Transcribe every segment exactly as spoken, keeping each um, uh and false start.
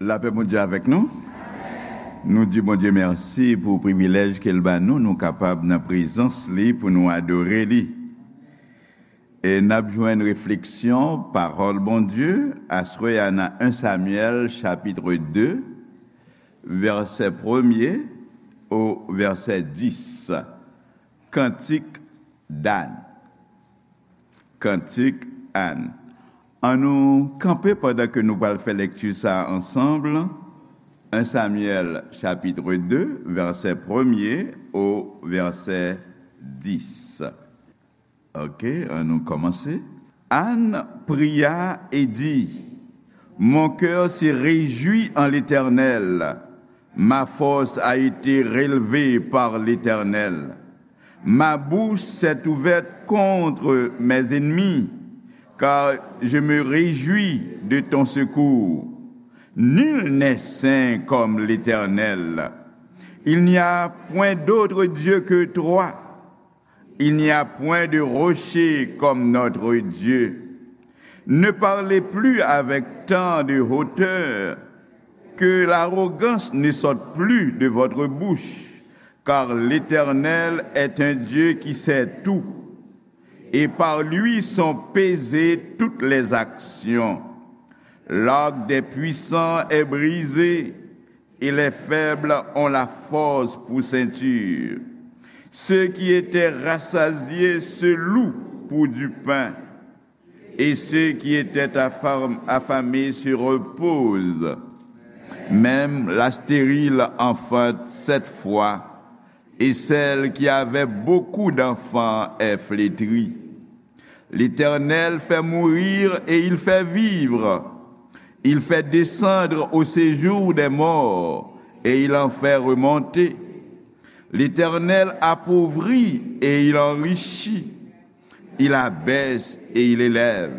Lapè Bondye avèk nou. Nou di Bondye mèsi pou privilèj ke l ba nou, nou kapab nan prezans li pou nou adore li. E n ap jwenn refleksyon pawòl Bondye aswè a nan en Samyèl chapit de, vèsè premye o vèsè dis. Kantik d'Ann. Kantik Ann. An nou kanpe pandan ke nou pral fè lekti sa ansanm. En Samyèl chapit de, vèsè premye o vèsè dis. Ok, an nou kòmanse. Anne pria et dit, Mon cœur se réjouit en l'Éternel, ma force a été relevée par l'Éternel. Ma bouche s'est ouverte contre mes ennemis, car je me réjouis de ton secours. Nul n'est saint comme l'Éternel. Il n'y a point d'autre Dieu que toi. Il n'y a point de rocher comme notre Dieu. Ne parlez plus avec tant de hauteur, que l'arrogance ne sorte plus de votre bouche, car l'Éternel est un Dieu qui sait tout, et par lui sont pesées toutes les actions. L'arc des puissants est brisé, et les faibles ont la force pour ceinture. Ceux qui étaient rassasiés se louent pour du pain, et ceux qui étaient affam-, affamés se reposent. Même la stérile enfante sept fois, et celle qui avait beaucoup d'enfants est flétrie. L'Éternel fait mourir et il fait vivre. Il fait descendre au séjour des morts et il en fait remonter. L'Éternel appauvrit et il enrichit. Il abaisse et il élève.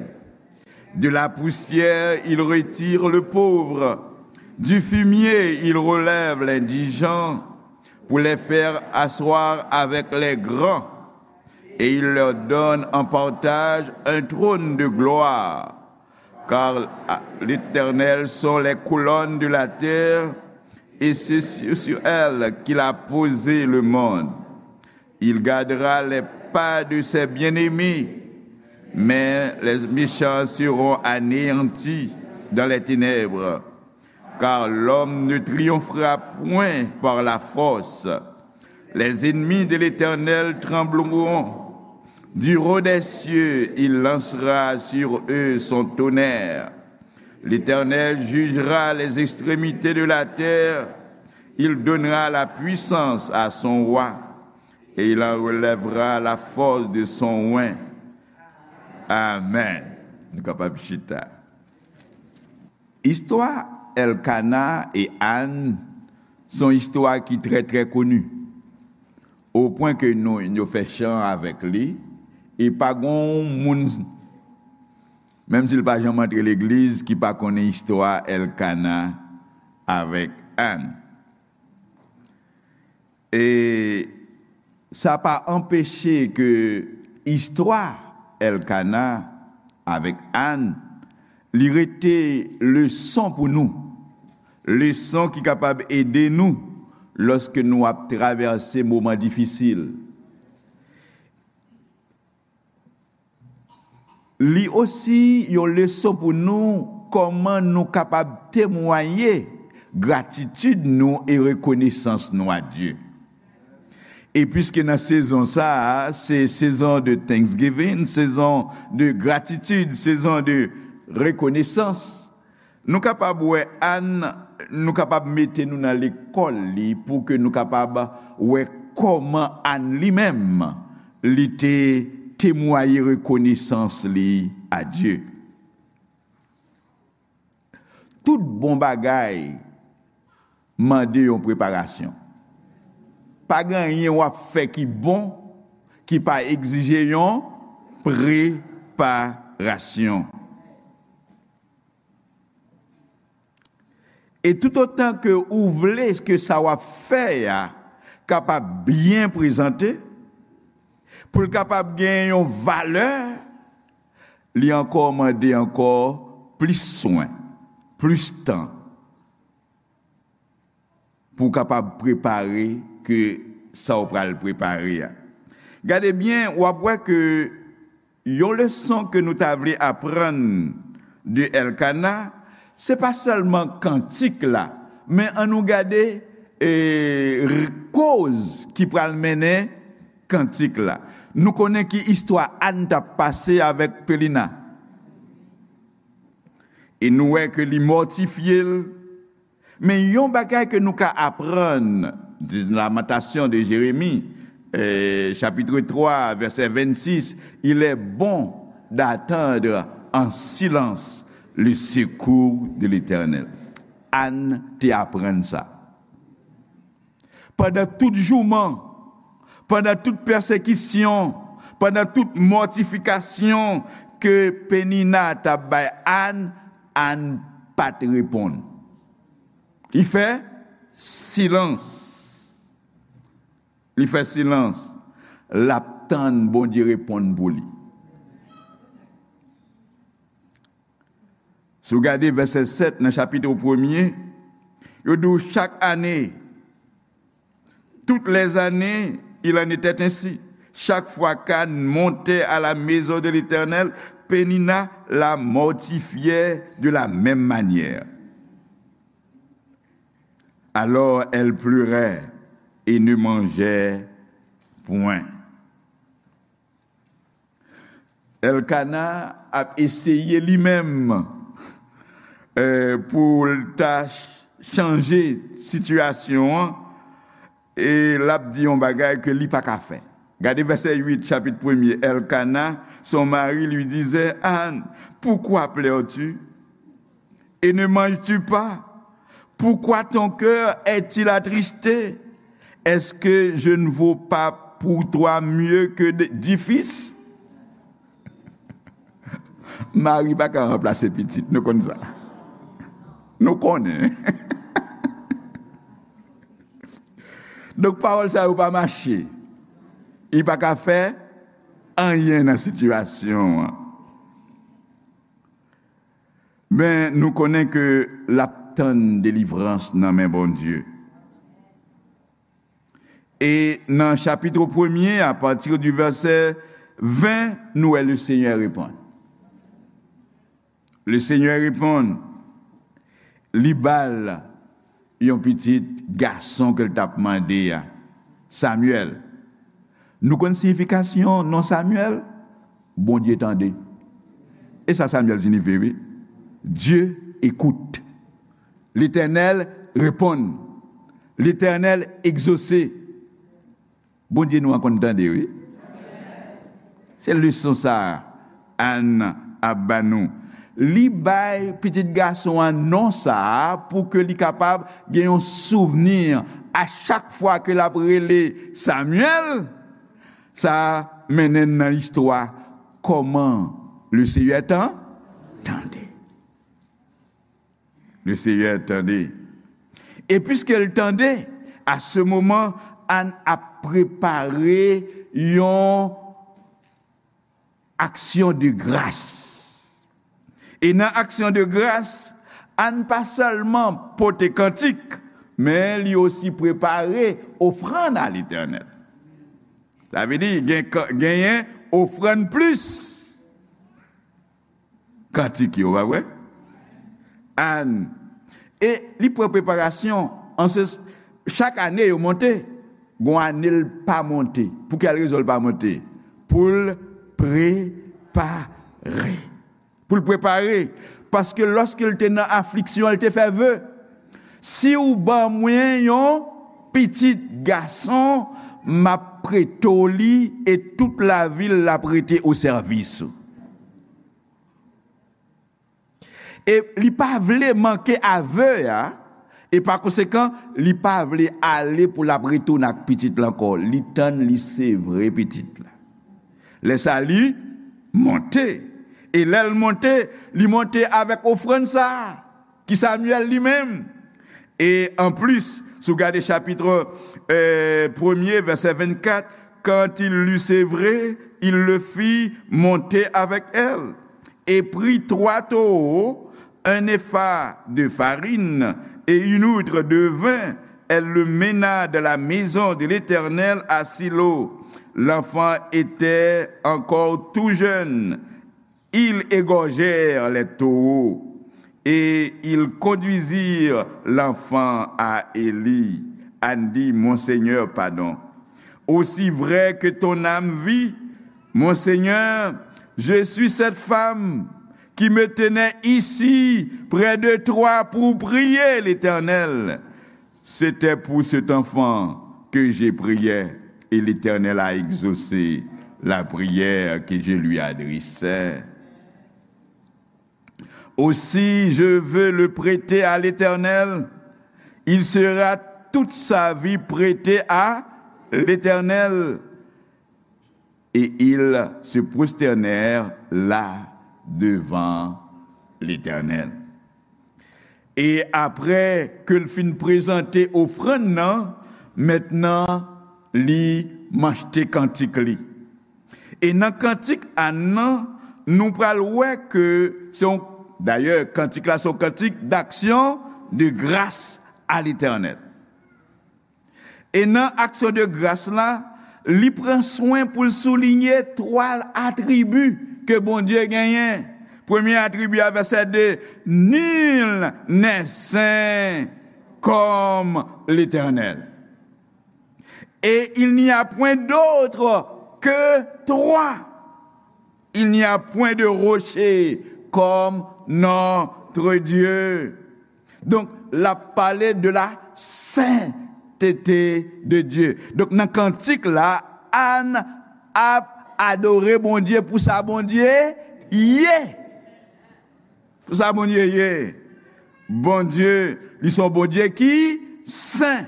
De la poussière, il retire le pauvre. Du fumier, il relève l'indigent pour les faire asseoir avec les grands. Et il leur donne en partage un trône de gloire. Car l'Éternel sont les colonnes de la terre, et c'est sur, sur elles qu'il a posé le monde. Il gardera les pas de ses bien-aimés, mais les méchants seront anéantis dans les ténèbres, car l'homme ne triomphera point par la force. Les ennemis de l'Éternel trembleront. Du haut des cieux, il lancera sur eux son tonnerre. L'Éternel jugera les extrémités de la terre. Il donnera la puissance à son roi, et il en relèvera la force de son oint. Amen. Nou kapab chita. Istwa Elkana e Ann se yon istwa ki trè, trè koni. O pwen ke nou, yo fè chan avèk li, e pa gen yon moun, menm si l pa janm antre legliz, ki pa konnen istwa Elkana avèk Ann. E sa pa anpeche ke istwa Elkana avèk Ann, li rete leson pou nou. Leson ki kapab ede nou lòske nou ap travèse moman difisil. Li osi yon leson pou nou kòman nou kapab temwaye gratitid nou e rekonesans nou a Dye. E piske nan sezon sa a, se sezon de Thanksgiving, sezon de gratitid, sezon de rekonesans, nou kapab wè Ann, nou kapab mete nou nan lekòl li pou ke nou kapab wè kòman Ann li menm, li te temwaye rekonesans li a Dye. Tout bon bagay mande yon preparasyon. Pa gen anyen w ap fè ki bon ki pa egzije yon preparasyon. E toutotan ke ou vle ke sa w ap fè a kapab byen prezante, pou l kapab gen yon valè, li ankò mande ankò plis swen, plis tan, pou w kapab prepare ke sa w pral prepare a. Gade byen, w ap wè ke yon leson ke nou ta vle aprann de Èlkana, se pa sèlman kantik la, men ann nou gade, e, r-, koz ki pral mennen kantik la. Nou konnen ki istwa Ann t ap pase avèk Penina. E nou wè ke li mòtifye l. Men yon bagay ke nou ka aprann de Lamentations de Jérémie, euh, chapitre trois, verset vingt-six, il est bon d'attendre en silence le secours de l'Éternel. Ann te aprann sa. Pandan tout jouman, pandan tout pèsekisyon, pandan tout mòtifikasyon ke Penina t ap bay Ann, Ann pa t reponn. Li fè silans. Li fè silans. L ap tann Bondye reponn pou li. Si w gade vèsè sèt nan chapit premye, yo di w chak ane, toutes les années, il en était ainsi. Chaque fois qu'Anne montait à la maison de l'Éternel, Pénina la mortifiait de la même manière. Alors elle pleurait et ne mangeait point. Èlkana ap eseye li menm, eh, pou l ta ch-, chanje sitiyasyon an, e l ap di yon bagay ke li pa ka fè. Gade vèsè uit, chapit premye. Elkana, son mari, lui disait: Anne, pourquoi pleures-tu ? Et ne manges-tu pas ? Pourquoi ton cœur est-il attristé ? Est-ce que je ne vaux pas pour toi mieux que de- dix fils ? Mari pa ka ranplase pitit, nou konn sa. Nou konnen. Donk, pawòl sa yo pa mache. Li pa ka fè anyen nan sitiyasyon an. Men, nou konnen ke l ap tann delivrans nan men Bondye. E nan chapit premye, apati di vèsè ven, nou wè Lesenyè reponn. Lesenyè reponn, li ba l yon pitit gason ke l t ap mande a, Samyèl. Nou konn siyifikasyon non Samyèl? Bondye tande. E sa Samyèl siyifi, wi. Dieu écoute. Letènèl reponn. Letènèl egzose. Bondye nou an konn tande, wi. Se leson sa a Ann ap ba nou. Li bay pitit gason an non sa a pou ke li kapab gen yon souvni a chak fwa ke l ap rele Samyèl. Sa mennen n nan istwa kòman Lesenyè tan-, tande. Lesenyè tande. E piske l tande, a se moman, Ann ap prepare yon aksyon de gras. E nan aksyon de gras, Ann pa sèlman pote kantik, men li osi prepare ofrann a Letènèl. Sa vle di, gen, genyen ofrann plis kantik yo, pa vre? Ann. E li pran preparasyon, an se, chak ane yo monte, gon ane l pa monte. Pou kèl rezon l pa monte? Pou l prepare. Pou l prepare. Paske lòske l te nan afliksyon, l te fè ve. Si w ban mwen yon pitit gason, m ap prete w li e tout lavi l l ap rete o sèvis ou. E li pa vle manke a ve a, e pa konsekan, li pa vle ale pou l ap retounen ak pitit la ankò. Li tann, li sevre pitit la. Lè sa li monte. E lè l monte, li monte avèk ofrann sa a, ki Samyèl li menm. E anplis, si w gade chapit, euh, premye, vèsè vennkat, quand il l'eut sevré, il le fit monter avec elle, et prit trois taureaux, un épha de farine et une outre de vin, Elle le mena dans la maison de l'Éternel à Silo. L'enfant était encore tout jeune. Ils égorgèrent les taureaux et ils conduisirent l'enfant à Élie. Anne dit, Mon Seigneur, pardon. Aussi vrai que ton âme vit, mon Seigneur, je suis cette femme qui me tenait ici près de toi pour prier l'Éternel. C'était pour cet enfant que je priais et l'Éternel a exaucé la prière que je lui adressais. Aussi, je veux le prêter à l'Éternel. Il sera toute sa vie prêté à l'Éternel. Et ils se prosternèrent là devant l'Éternel. E apre ke l fin prezante ofrann nan, mentnan li machte kantik li. E nan kantik Ann nan, nou pral wè ke se yon, dayè, kantik la se yon kantik d'action de grâce à l'Éternel. E nan aksyon de gras la, li pran swen pou l soulinye twa atribi ke Bondye genyen. Premye atribi a, vèsè de, Nul n'est saint comme l'Éternel. Et il n'y a point d'autre que toi. Il n'y a point de rocher comme notre Dieu. Donk, l ap pale de la sainteté de Dieu. Donk, nan kantik la, Ann ap adore Bondye pou sa Bondye ye. Pou sa Bondye ye. Bondye, li se yon Bondye ki sen.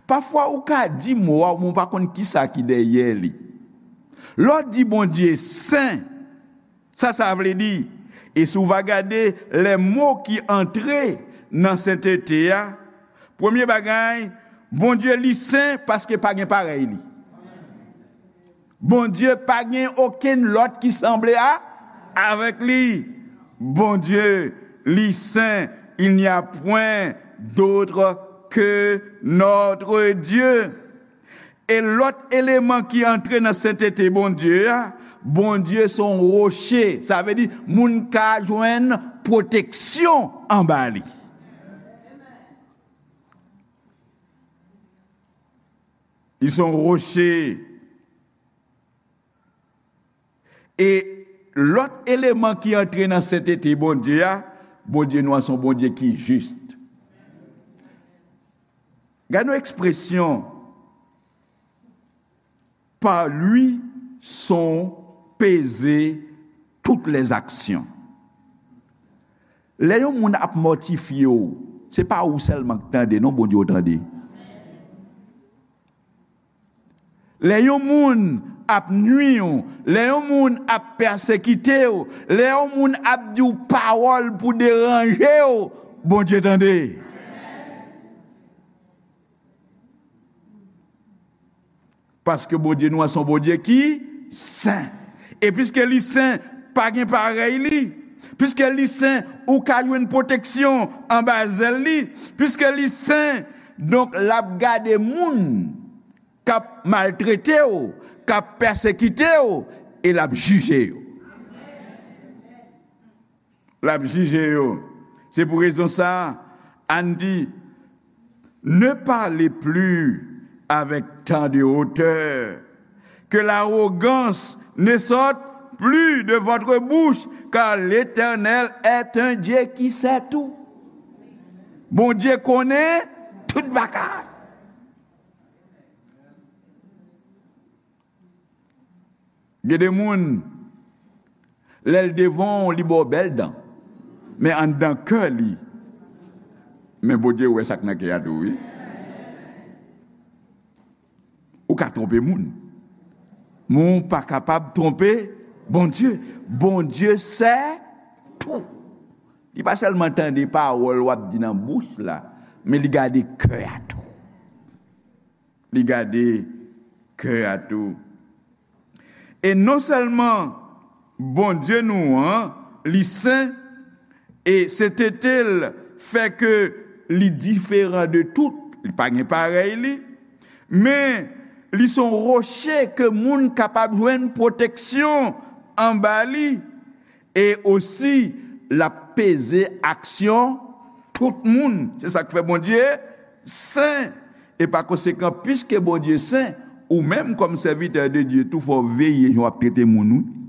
Pafwa, ou ka di mo a, men ou pa konn kisa ki dèyè li. Lè w di Bondye sen, sa sa vle di? E si w va gade lè mo ki antre nan sentete a, premye bagay, Bondye li sen paske pa gen parèy li. Bondye pa gen okenn lòt ki sanble a, avèk li. Bondye li sen, il n'y a point d'autre que notre Dieu. E lòt eleman ki antre nan sentete Bondye a, Bondye se yon woche. Sa vle di, moun ka jwenn pwoteksyon anba li. Li se yon woche. E lòt eleman ki antre nan sentete Bondye a, Bondye nou an se yon Bondye ki jis. Gade yon ekspresyon, par lui sont pesées toutes les actions. Lè yon moun ap mòtifye w, se pa ou sèlman k tande, non, Bondye w tande. Lè yon moun ap nwi w, lè yon moun ap pèsekite w, lè yon moun ap di w pawòl pou deranje w, Bondye tande. Paske Bondye nou an se yon Bondye ki sen. E piske li sen, pa gen parèy li. Piske li sen, ou ka jwenn pwoteksyon anba zèl li. Piske li sen, donk, l ap gade moun k ap maltrete w, k ap pèsekite w, e l ap jije yo. L ap jije yo. Se pou rezon sa a, Ann di, Ne parlez plus avec tant de hauteur, que l'arrogance ne sorte plus de votre bouche, car l'Éternel est un Dieu qui sait tout. Bondye konnen tout bagay. Gen de moun, lè l devan w, li ba w bèl dan. Men anndan kè li, men Bondye wè sa k nan kè a tou, wi. Ou ka twonpe moun, men ou pa kapab twonpe Bondye. Bondye sè tou. Li pa sèlman tande pawòl w ap di nan bouch la, men li gade kè a tou. Li gade kè a tou. E non sèlman Bondye nou an, li sen, e sentete l fè ke li diferan de tout Li pa gen parèy li, men li se yon woche ke moun kapab jwenn pwoteksyon anba li, e osi l ap peze aksyon tout moun. Se sa k fè Bondye sen. E pa konsekan, piske Bondye sen, ou menm kòm sèvitè de Dye tou, fò w veye jan w ap trete moun, wi.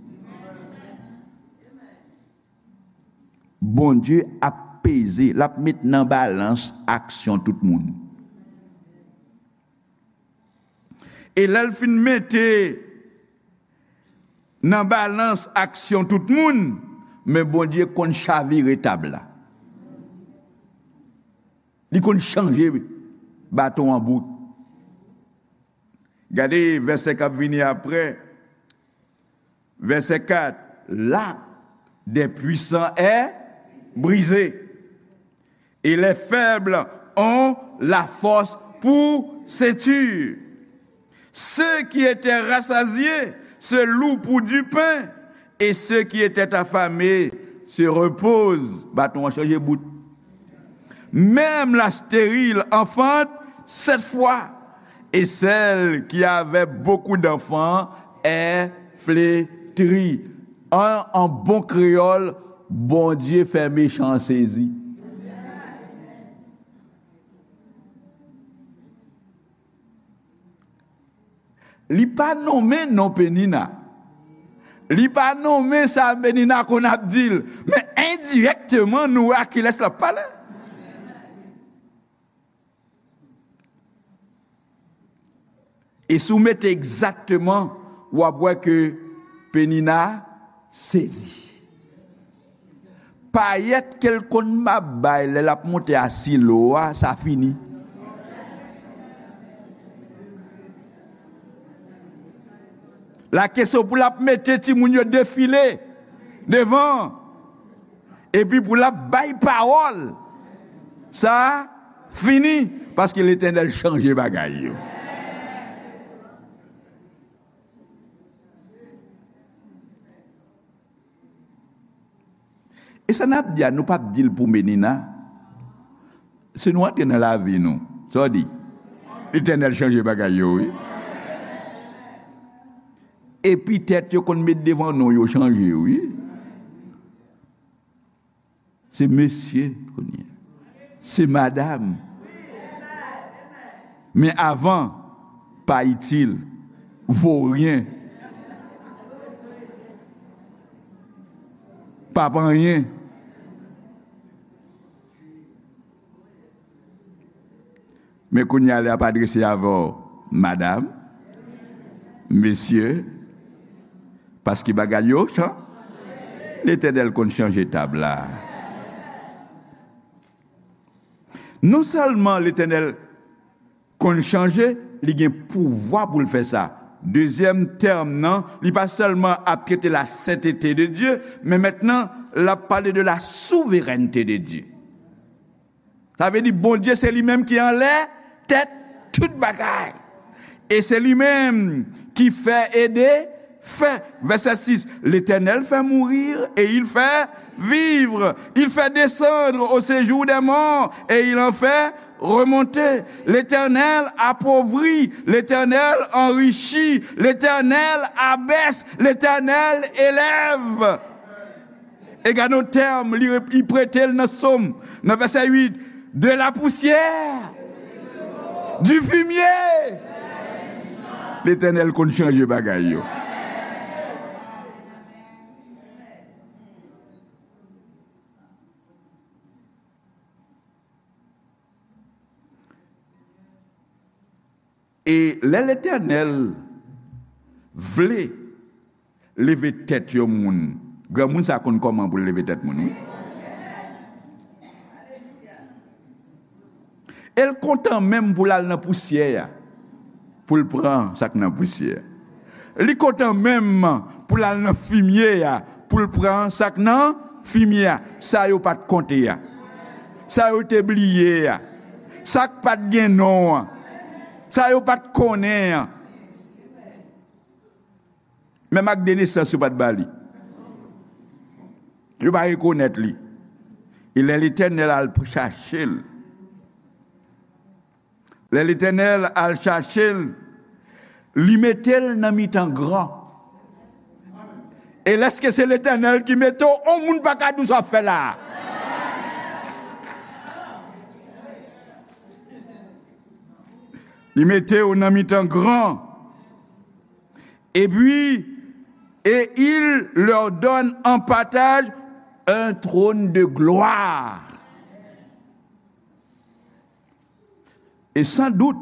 Bondye ap peze, l ap met nan balans aksyon tout moun. E lè l fin mete nan balans aksyon tout moun, men Bondye konn chavire tab la. Li konn chanje baton an bout. Gade vèsè k ap vini apre. Verset quatre, l'arc des puissants est brisé, et les faibles ont la force pour ceinture. Ceux qui étaient rassasiés se louent pour du pain, et ceux qui étaient affamés se reposent. Baton an chanje bout. Même la stérile enfante sept fois, et celle qui avait beaucoup d'enfants est flétrie. An, an bon kreyòl, Bondye fè mechan an sezi. Li pa nonmen non Penina. Li pa nonmen sa Penina konn ap di l. Men endirèkteman, nou wè a kilès l ap pale. E si w mete egzakteman, w ap wè ke Penina sezi. Payèt ke l konn ap bay lè l ap monte a Silo a, sa fini. La kesyon pou l ap mete timoun yo defile devan, epi pou l ap bay pawòl, sa fini, paske Letènèl chanje bagay yo. E sa n ap di a, nou p ap di l pou Penina. Si nou antre nan lavi nou, sa w di? Letènèl chanje bagay yo, wi. Epitèt yo konn met devan non yo chanje, wi. Se mesye kounye a. Se madam. Men avan, pa itil, voryen, pa p anyen. Men kounye a, lè y ap adrese avè w, madam, mesye, paske bagay yo chan-, Letènèl konn chanje tab la. Non sèlman Letènèl konn chanje, li gen pouvwa pou l fè sa. Dezyèm tèm nan, li pa sèlman ap trete la sentete de Dye, men mentnan, l ap pale de la souverènte de Dye. Sa vle di Bondye se li menm ki anlè tèt tout bagay. E se li menm ki fè e defè. Verset six, L'Éternel fait mourir et il fait vivre. Il fait descendre au séjour des morts et il en fait remonter. L'Éternel appauvrit, l'Éternel enrichit, l'Éternel abaisse, l'Éternel élève. E gade yon tèm, li, li prete l nan Sòm, nan vèsè uit, de la poussière, du fumier. Letènèl konn chanje bagay yo. E lè Letènèl vle leve tèt yon moun, granmoun sa konn kòman pou l leve tèt moun, wi. E l kontan menm pou l al nan pousyè a, pou l pran sa k nan pousyè a. Li kontan menm pou l al nan fimye a, pou l pran sa k nan fimye a. Sa yo pa t konte a. Sa yo te bliye a. Sa k pa t gen non an. Sa yo pa t konnen an. Menm ak de nesans, yo pa t ba li. Yo pa rekonèt li. E lè Letènèl al chache l, Lè Letènèl al chache l, li mete l nan mitan gran. E lèske se Letènèl ki mete w, on moun pa ka di w sa w ap fè la a. Li mete w nan mitan gran. Et puis, et il leur donne en partage un trône de gloire. E san dout,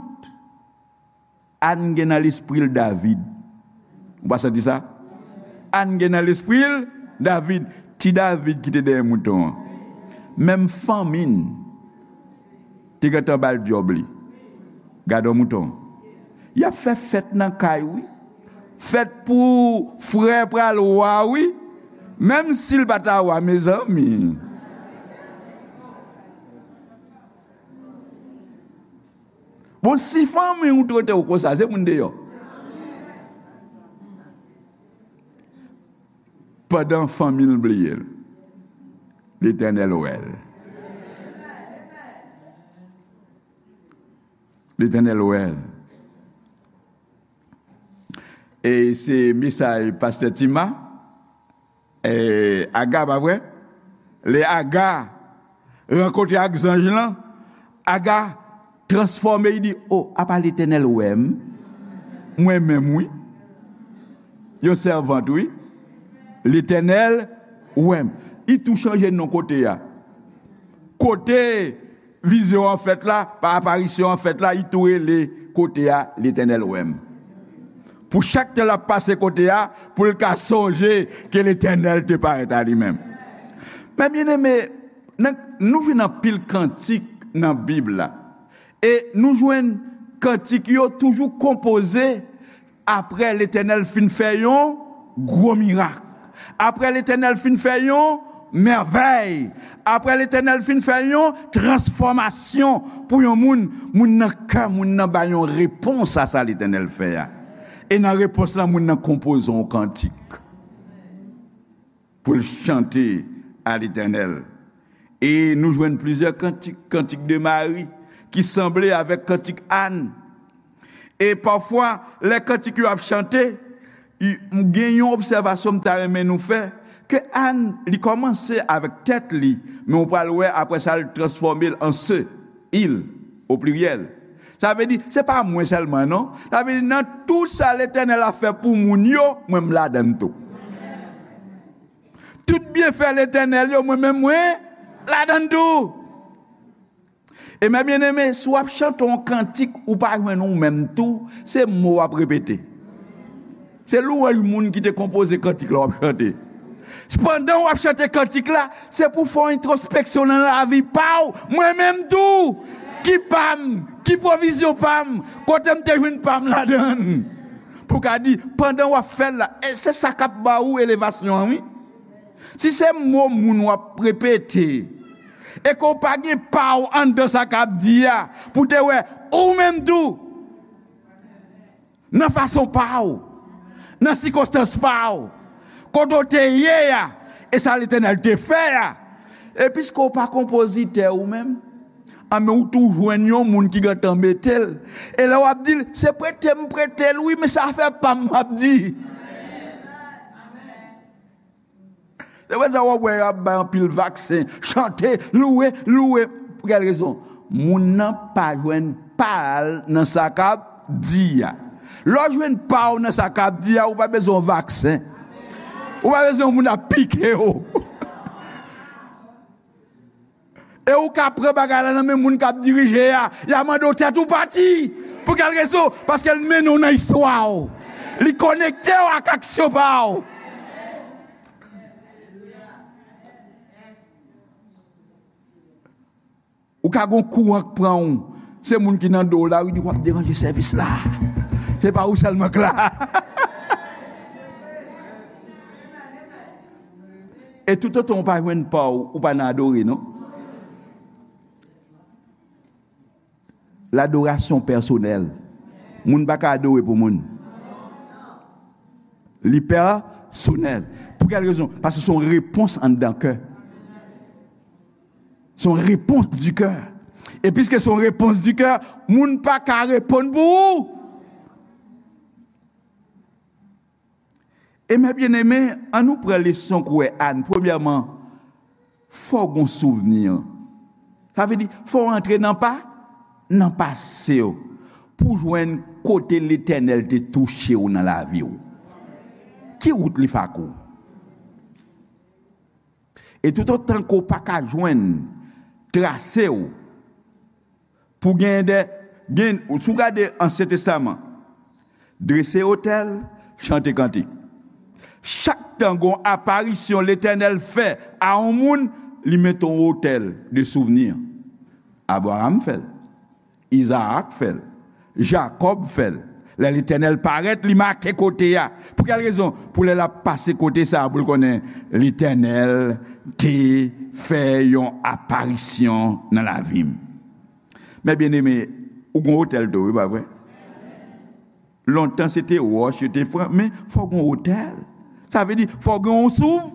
Ann gen nan lespri l David. Ou pa santi sa? Ann gen nan lespri l David. Ti David ki te dèyè mouton an. Menm fanmi n te gentan ba l djòb li. Gade yon mouton. Y ap fè fèt nan kay, wi. Fèt pou frè pral wa, wi. Menm si l pa ta wa, mezanmi. Bon, si fanmi w trete w konsa, se moun deyò. Pandan fanmi l bliye l, Letènèl wè l. Letènèl wè l. E se mesaj pastè Tima, e, Aga, pa vre? Lè Aga rankontre ak zanj lan, Aga transfòme, li di, "O, apa Letènèl wè m? Mwen menm, wi. Yon sèvant, wi. Letènèl wè m." Li tou chanje non kote a. Kote vizyon an fèt la, pa aparisyon an fèt la, li tou rele kote a, "Letènèl wè m." Pou chak tan l ap pase kote a, pou l ka sonje ke Letènèl te parèt a li menm. Men byeneme, nan, nou jwenn anpil kantik nan Bib la. E nou jwenn kantik yo toujou konpoze apre Letènèl fin fè yon gwo mirak. Apre Letènèl fin fè yon mèvèy. Apre Letènèl fin fè yon transfòmasyon pou yon moun, moun nan kè moun nan ba yon repons a sa Letènèl fè a. E nan repons lan, moun nan konpoze yon kantik pou l chante a Letènèl. E nou jwenn plizyè kantik, kantik de Mari, ki sanble avèk kantik Ann. E pafwa, lè kantik yo ap chante, i, m gen yon obsèvasyon m ta renmen nou fè, ke Ann, li kòmanse avèk tèt li, men ou pral wè apre sa, l transfòme l an se, il, o pliryèl. Sa vle di, se pa mwen sèlman, non. Sa vle di, nan tout sa Letènèl ap fè pou moun yo, mwen, m ladann tou. Tout byenfè Letènèl yo, mwen menm, mwen ladann tou. E men byeneme, si w ap chante yon kantik, ou pa jwenn ou menm tou, se mo w ap repete. Se lwanj moun ki te konpoze kantik la w ap chante. Pandan w ap chante kantik la, se pou w fè yon entwospeksyon nan lavi pa w, mwen menm tou. Ki pa m? Ki pwovizyon pa m? Kote m te jwenn pa m ladann? Pou w ka di, pandan w ap fè l la, e se sa k ap ba ou elevasyon an, wi. Si se mo moun w ap repete, e ke w pa gen pa w anndan sa k ap di a, pou te wè ou menm tou, nan fason pa w, nan sikonstans pa w, kote w te ye a, e sa Letènèl te fè a, e piske w pa konpozitè ou menm, a men ou tou jwenn yon moun ki gentan mete l, e lè w ap di l, se prete m prete l, wi, men se afè pa m m ap di. Se pou sa w ap wè y ap bay anpil vaksen, chante, louwe, louwe. Pou kèl rezon? Moun nan pa jwenn pa l nan sa k ap di a. Lè w jwenn pa w nan sa k ap di a, ou pa bezwen yon vaksen. Ou pa bezwen yon moun ap pike w. E ou ka pran bagay la nan men moun k ap dirije a. Y a mande w tèt ou pati. Pou kèl rezon? Paske l mennen w nan istwa w. Li konekte w ak aksyon pa w. Ou ka gon kouran k pran w. Se moun ki nan do w la, wi, di w ap deranje sèvis la. Se pa ou sèlman k la. E toutotan w pa jwenn pa w, ou pa nan adore, non. Ladorasyon pèsonèl. Moun pa ka adore pou moun. Li pèsonèl. Pou kèl rezon? Paske se yon repons anndan kè. Se yon repons di kè. E piske se yon repons di kè, moun pa ka reponn pou ou. E mè byeneme, ann nou pran leson kouwè Ann. Premyèman, fò w gon souvni. Sa vle di, fò w antre nan pa, nan pase w, pou w jwenn kote Letènèl te touche w nan lavi w. Ki wout li fè ak ou? E toutotan ke w pa ka jwenn trase w, pou gen de, gen, si w gade Ansyen Testaman, drese otèl, chante kantik. Chak tan gon aparisyon Letènèl fè a yon moun, li mete yon otèl de souvni. Abraram fè l. Izaak fè l. Jakòb fè l. Lè Letènèl parèt, li make kote a. Pou kèl rezon? Pou lè l ap pase kote sa a, pou l konnen Letènèl te fè yon aparisyon nan lavi m. Mè byeneme, ou gon otèl tou, wi, pa vre? Lontan, se te wòch yo te fè, men fò w gon otèl. Sa vle di, fò w gen yon souv-,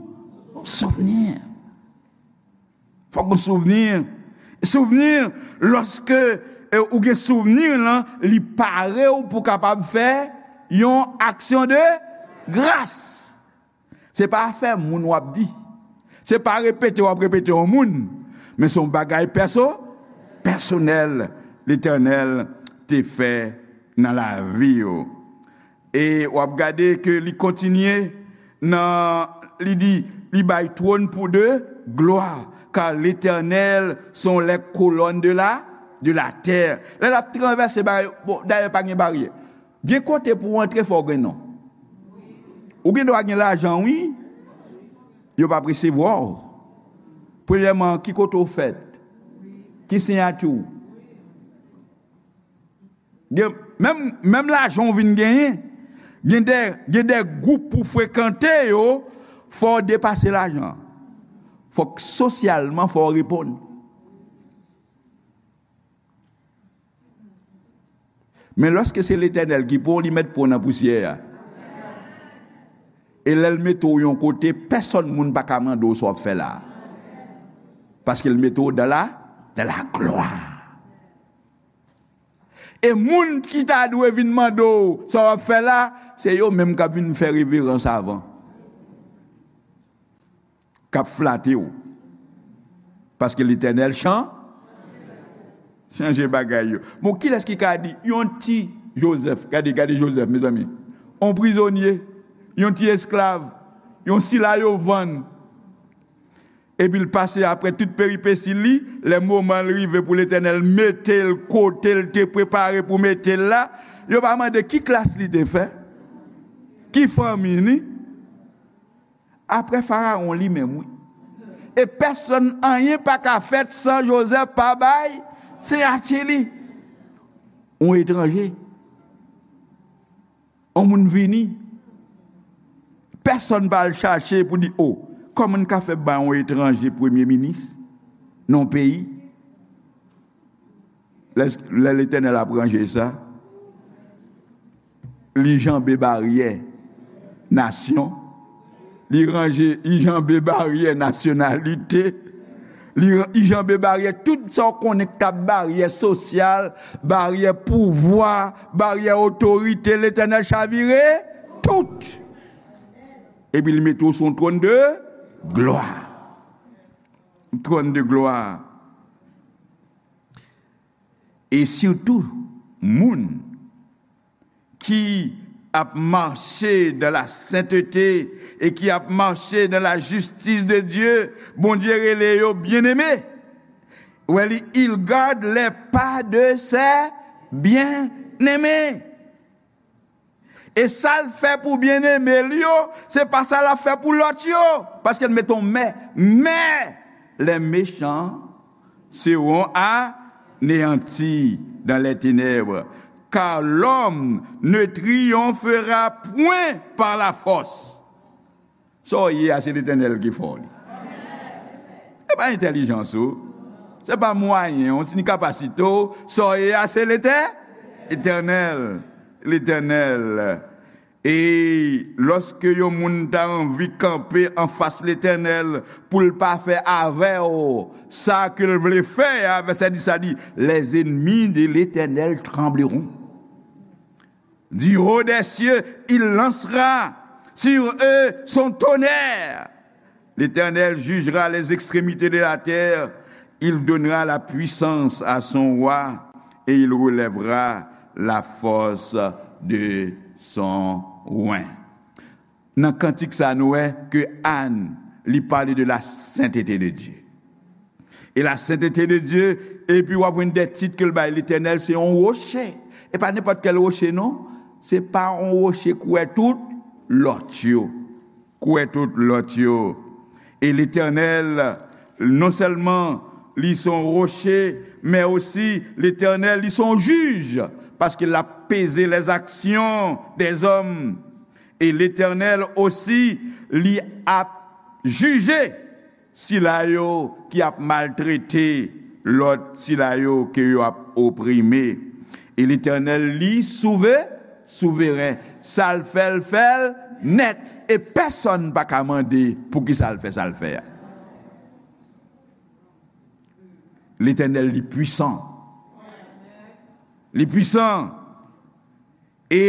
souvni. Fòk gon souvni. Souvni, lòske, e, ou gen souvni lan, li pare w pou kapab fè yon aksyon de gras. Se pa afè moun w ap di. Se pa repete w ap repete yon moun. Men se yon bagay pèso-, pèsonèl Letènèl te fè nan lavi w. E w ap gade ke li kontinye nan, li di, li bay twòn pou de glwa, car l'Éternel sont les colonnes de la, de la terre. Lè l ap travèse bay, bon, dayè pa gen baryè. Gen kote pou w antre fò w gen non. Ou gen dwa gen lajan, wi. Yo p ap resevwa w. Premyèman, ki kote w fèt? Ki siyati w? Gen, menm, menm lajan w vin genyen, gen de, gen de gwoup pou frekante yo, fò w depase lajan. Fòk sosyalman, fò w reponn. Men lòske se Letènèl ki pran w, li mèt pran w nan pousyè a. E lè l mete w yon kote, pèsòn moun pa ka mande w sa w ap fè la. Paske l mete w dans la, dans la gloire. E moun ki ta dwe vin mande w sa w ap fè la, se yo menm k ap vin fè reverans avan. K ap flate w. Paske Letènèl chan-, chanje bagay yo. Bon, kilès ki ka di, yon ti Jozèf, gade, gade Jozèf, mezanmi. Yon prizonye, yon ti esklav, yon sila yo vann. Epi l pase apre tout peripesi li, lè moman l rive pou Letènèl mete l kote l te prepare pou mete l la, yo pa mande ki klas li te fè, ki fanmi li. Apre Farawon li menm, wi. E pèsonn, anyen pa ka fèt san Jozèf pa bay siyati li. Yon etranje. Yon moun vini. Pèsonn pa al chache pou di, o, kòman n ka fè bay yon etranje premye minis nan yon peyi? Lè, lè Letènèl ap ranje sa, li janbe baryè nasyon, li ranje, li janbe baryè nasyonalite, li, li janbe baryè tout sa w konnen k t ap baryè sosyal, baryè pouvwa, baryè otorite, Letènèl chavire tout. Epi li mete w sou yon twòn de glwa. Twòn de glwa. E sitou, moun ki ap mache dans la sainteté e ki ap mache dans la justice de Dieu, Bondye rele yo byeneme. Wè li, il garde les pas de ses bien-aimés. E sa l fè pou byeneme l yo, se pa sa l ap fè pou lòt yo. Paske l mete yon mè. Mais les méchants seront anéantis dans les ténèbres, car l'homme ne triomphera point par la force. Sa w ye a, se Letènèl ki fè w li. Se pa entèlijans ou. Se pa mwayen w, ni kapasite w. Sa w ye a, se Letè-, Letènèl. Letènèl. E lòske yon moun ta anvi kanpe anfas Letènèl pou l pa fè avè w sa ke l vle fè a, vèsè dis la di, les ennemis de l'Éternel trembleront. Du haut des cieux, il lancera sur eux son tonnerre. L'Éternel jugera les extrémités de la terre. Il donnera la puissance à son roi et il relèvera la force de son oint. Nan kantik sa, nou wè ke Ann, li pale de la sainteté de Dieu. E la sainteté de Dieu, epi w ap jwenn de tit ke l bay Letènèl, se yon woche. E pa nenpòt kèl woche, non. Se pa yon woche kouvè tout lòt yo. Kouvè tout lòt yo. E Letènèl, non sèlman li se yon woche, men osi Letènèl, li se yon jij, paske l ap peze les actions des hommes. E Letènèl osi, li ap jije sila yo ki ap maltrete lòt, sila yo ke yo ap oprime. E Letènèl, li souve, souveren. Sa l fè, l fè l nèt. E pèsonn pa ka mande poukisa l fè sa l fè a. Letènèl, li pwisan. Li pwisan. E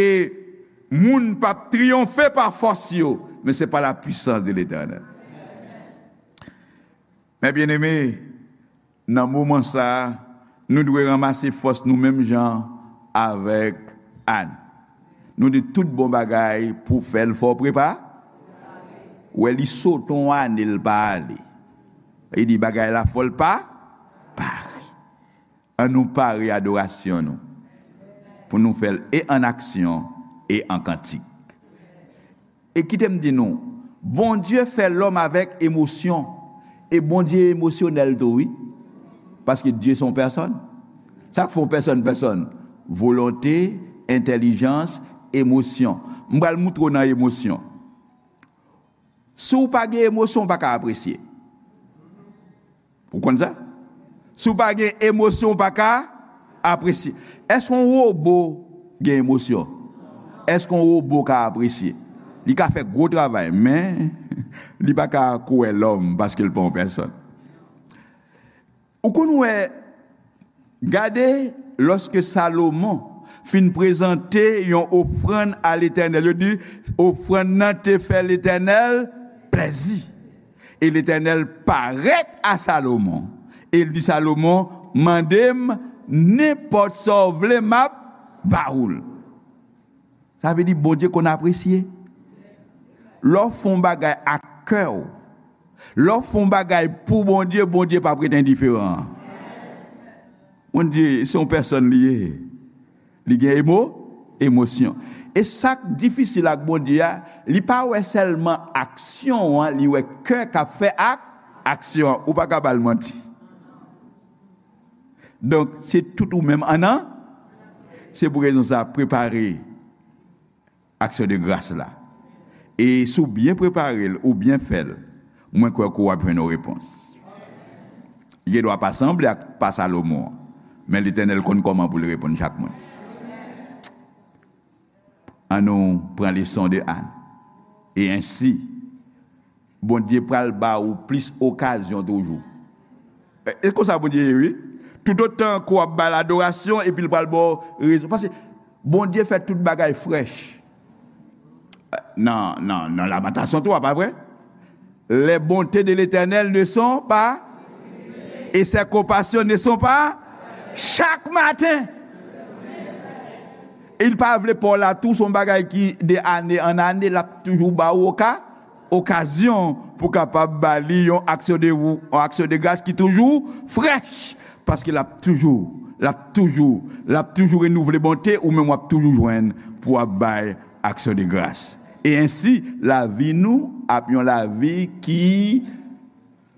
moun p ap triyonfe pa fòs yo, men se pa la puissance de l'Éternel. Mes bien-aimés, nan moman sa a, nou dwe ranmase fòs nou menm jan avèk Ann. Nou di tout bon bagay pou fè l fò prepa. Wè, li sote yon ane l pa ale. Li di bagay la fò l pa pare. An nou pare adorasyon nou pou nou fè l e an aksyon e an kantik. E kite m di nou, Bondye fè lòm avèk emosyon. E Bondye emosyonèl tou, wi. Paske Dye se yon pèsòn. Sa k fè yon pèsòn pèsòn? Volonte, entèlijans, emosyon. M pral moutre w nan emosyon. Si w pa gen emosyon, w pa ka apresye. Ou konn sa? Si w pa gen emosyon, w pa ka apresye. Èske yon wobo gen emosyon? Èske yon wobo ka apresye? Li ka fè gwo travay, men li pa ka kouvè lòm paske l pa yon pèsòn. Ou konn wè, gade, lòske Salomon fin prezante yon ofrann a Letènèl, yo di, ofrann nan te fè Letènèl plèzi. E Letènèl parèt a Salomon, e l di Salomon, mande m nenpòt sa w vle, m ap ba ou l. Sa vle di Bondye konn apresye. Lè w fè yon bagay ak kè w, lè w fè yon bagay pou Bondye, Bondye p ap ret endiferan. Bondye, se yon pèsòn li ye. Li gen emo, emosyon. E sa k difisil ak Bondye a, li pa wè sèlman aksyon an, li wè kè k ap fè ak aksyon an. Ou pa ka ba l manti. Donk, se tout ou menm an nan. Se pou rezon sa, prepare aksyon de gras la. E si w byen prepare l, ou byen fè l, mwen kwè ke w ap jwenn yon repons. Li gendwa pa sanble ak pa Salomon an, men Letènèl konn kòman pou l reponn chak moun. An nou pran leson de Ann. E ensi, Bondye pral ba ou plis okazyon toujou. E, e konsa Bondye ye, wi. Toutotan ke w ap ba l adorasyon, epi l pral ba w rezon. Paske Bondye fè tout bagay frèch. Nan, nan, nan Lamantasyon twa, pa vre? Les bontés de l'Éternel ne sont pas, et ses compassions ne sont pas, chaque matin. E l pa vle pa w la tou, se yon bagay ki de ane an ane, l ap toujou ba w oka, okazyon pou kapab ba li yon aksyon de, yon aksyon de gras ki toujou frèch. Paske l ap toujou, l ap toujou, l ap toujou renouvle bonte, ou menm w ap toujou jwenn pou w ap bay aksyon de gras. E ensi, lavi nou ap yon lavi ki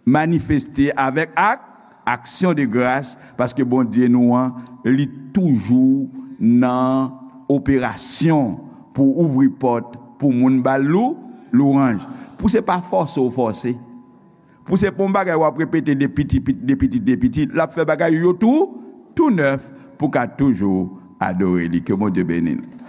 manifeste avèk ak, aksyon de gras, paske Bondye nou an, li toujou nan operasyon pou ouvri pòt pou moun ba l lou, lwanj. Pou se pa fòse w fòse. Pou se pa yon bagay w ap repete de piti, pit-, de pitit, de pitit. L ap fè bagay yo tou, tou nèf pou w ka toujou adore li. Ke Bondye beni nou.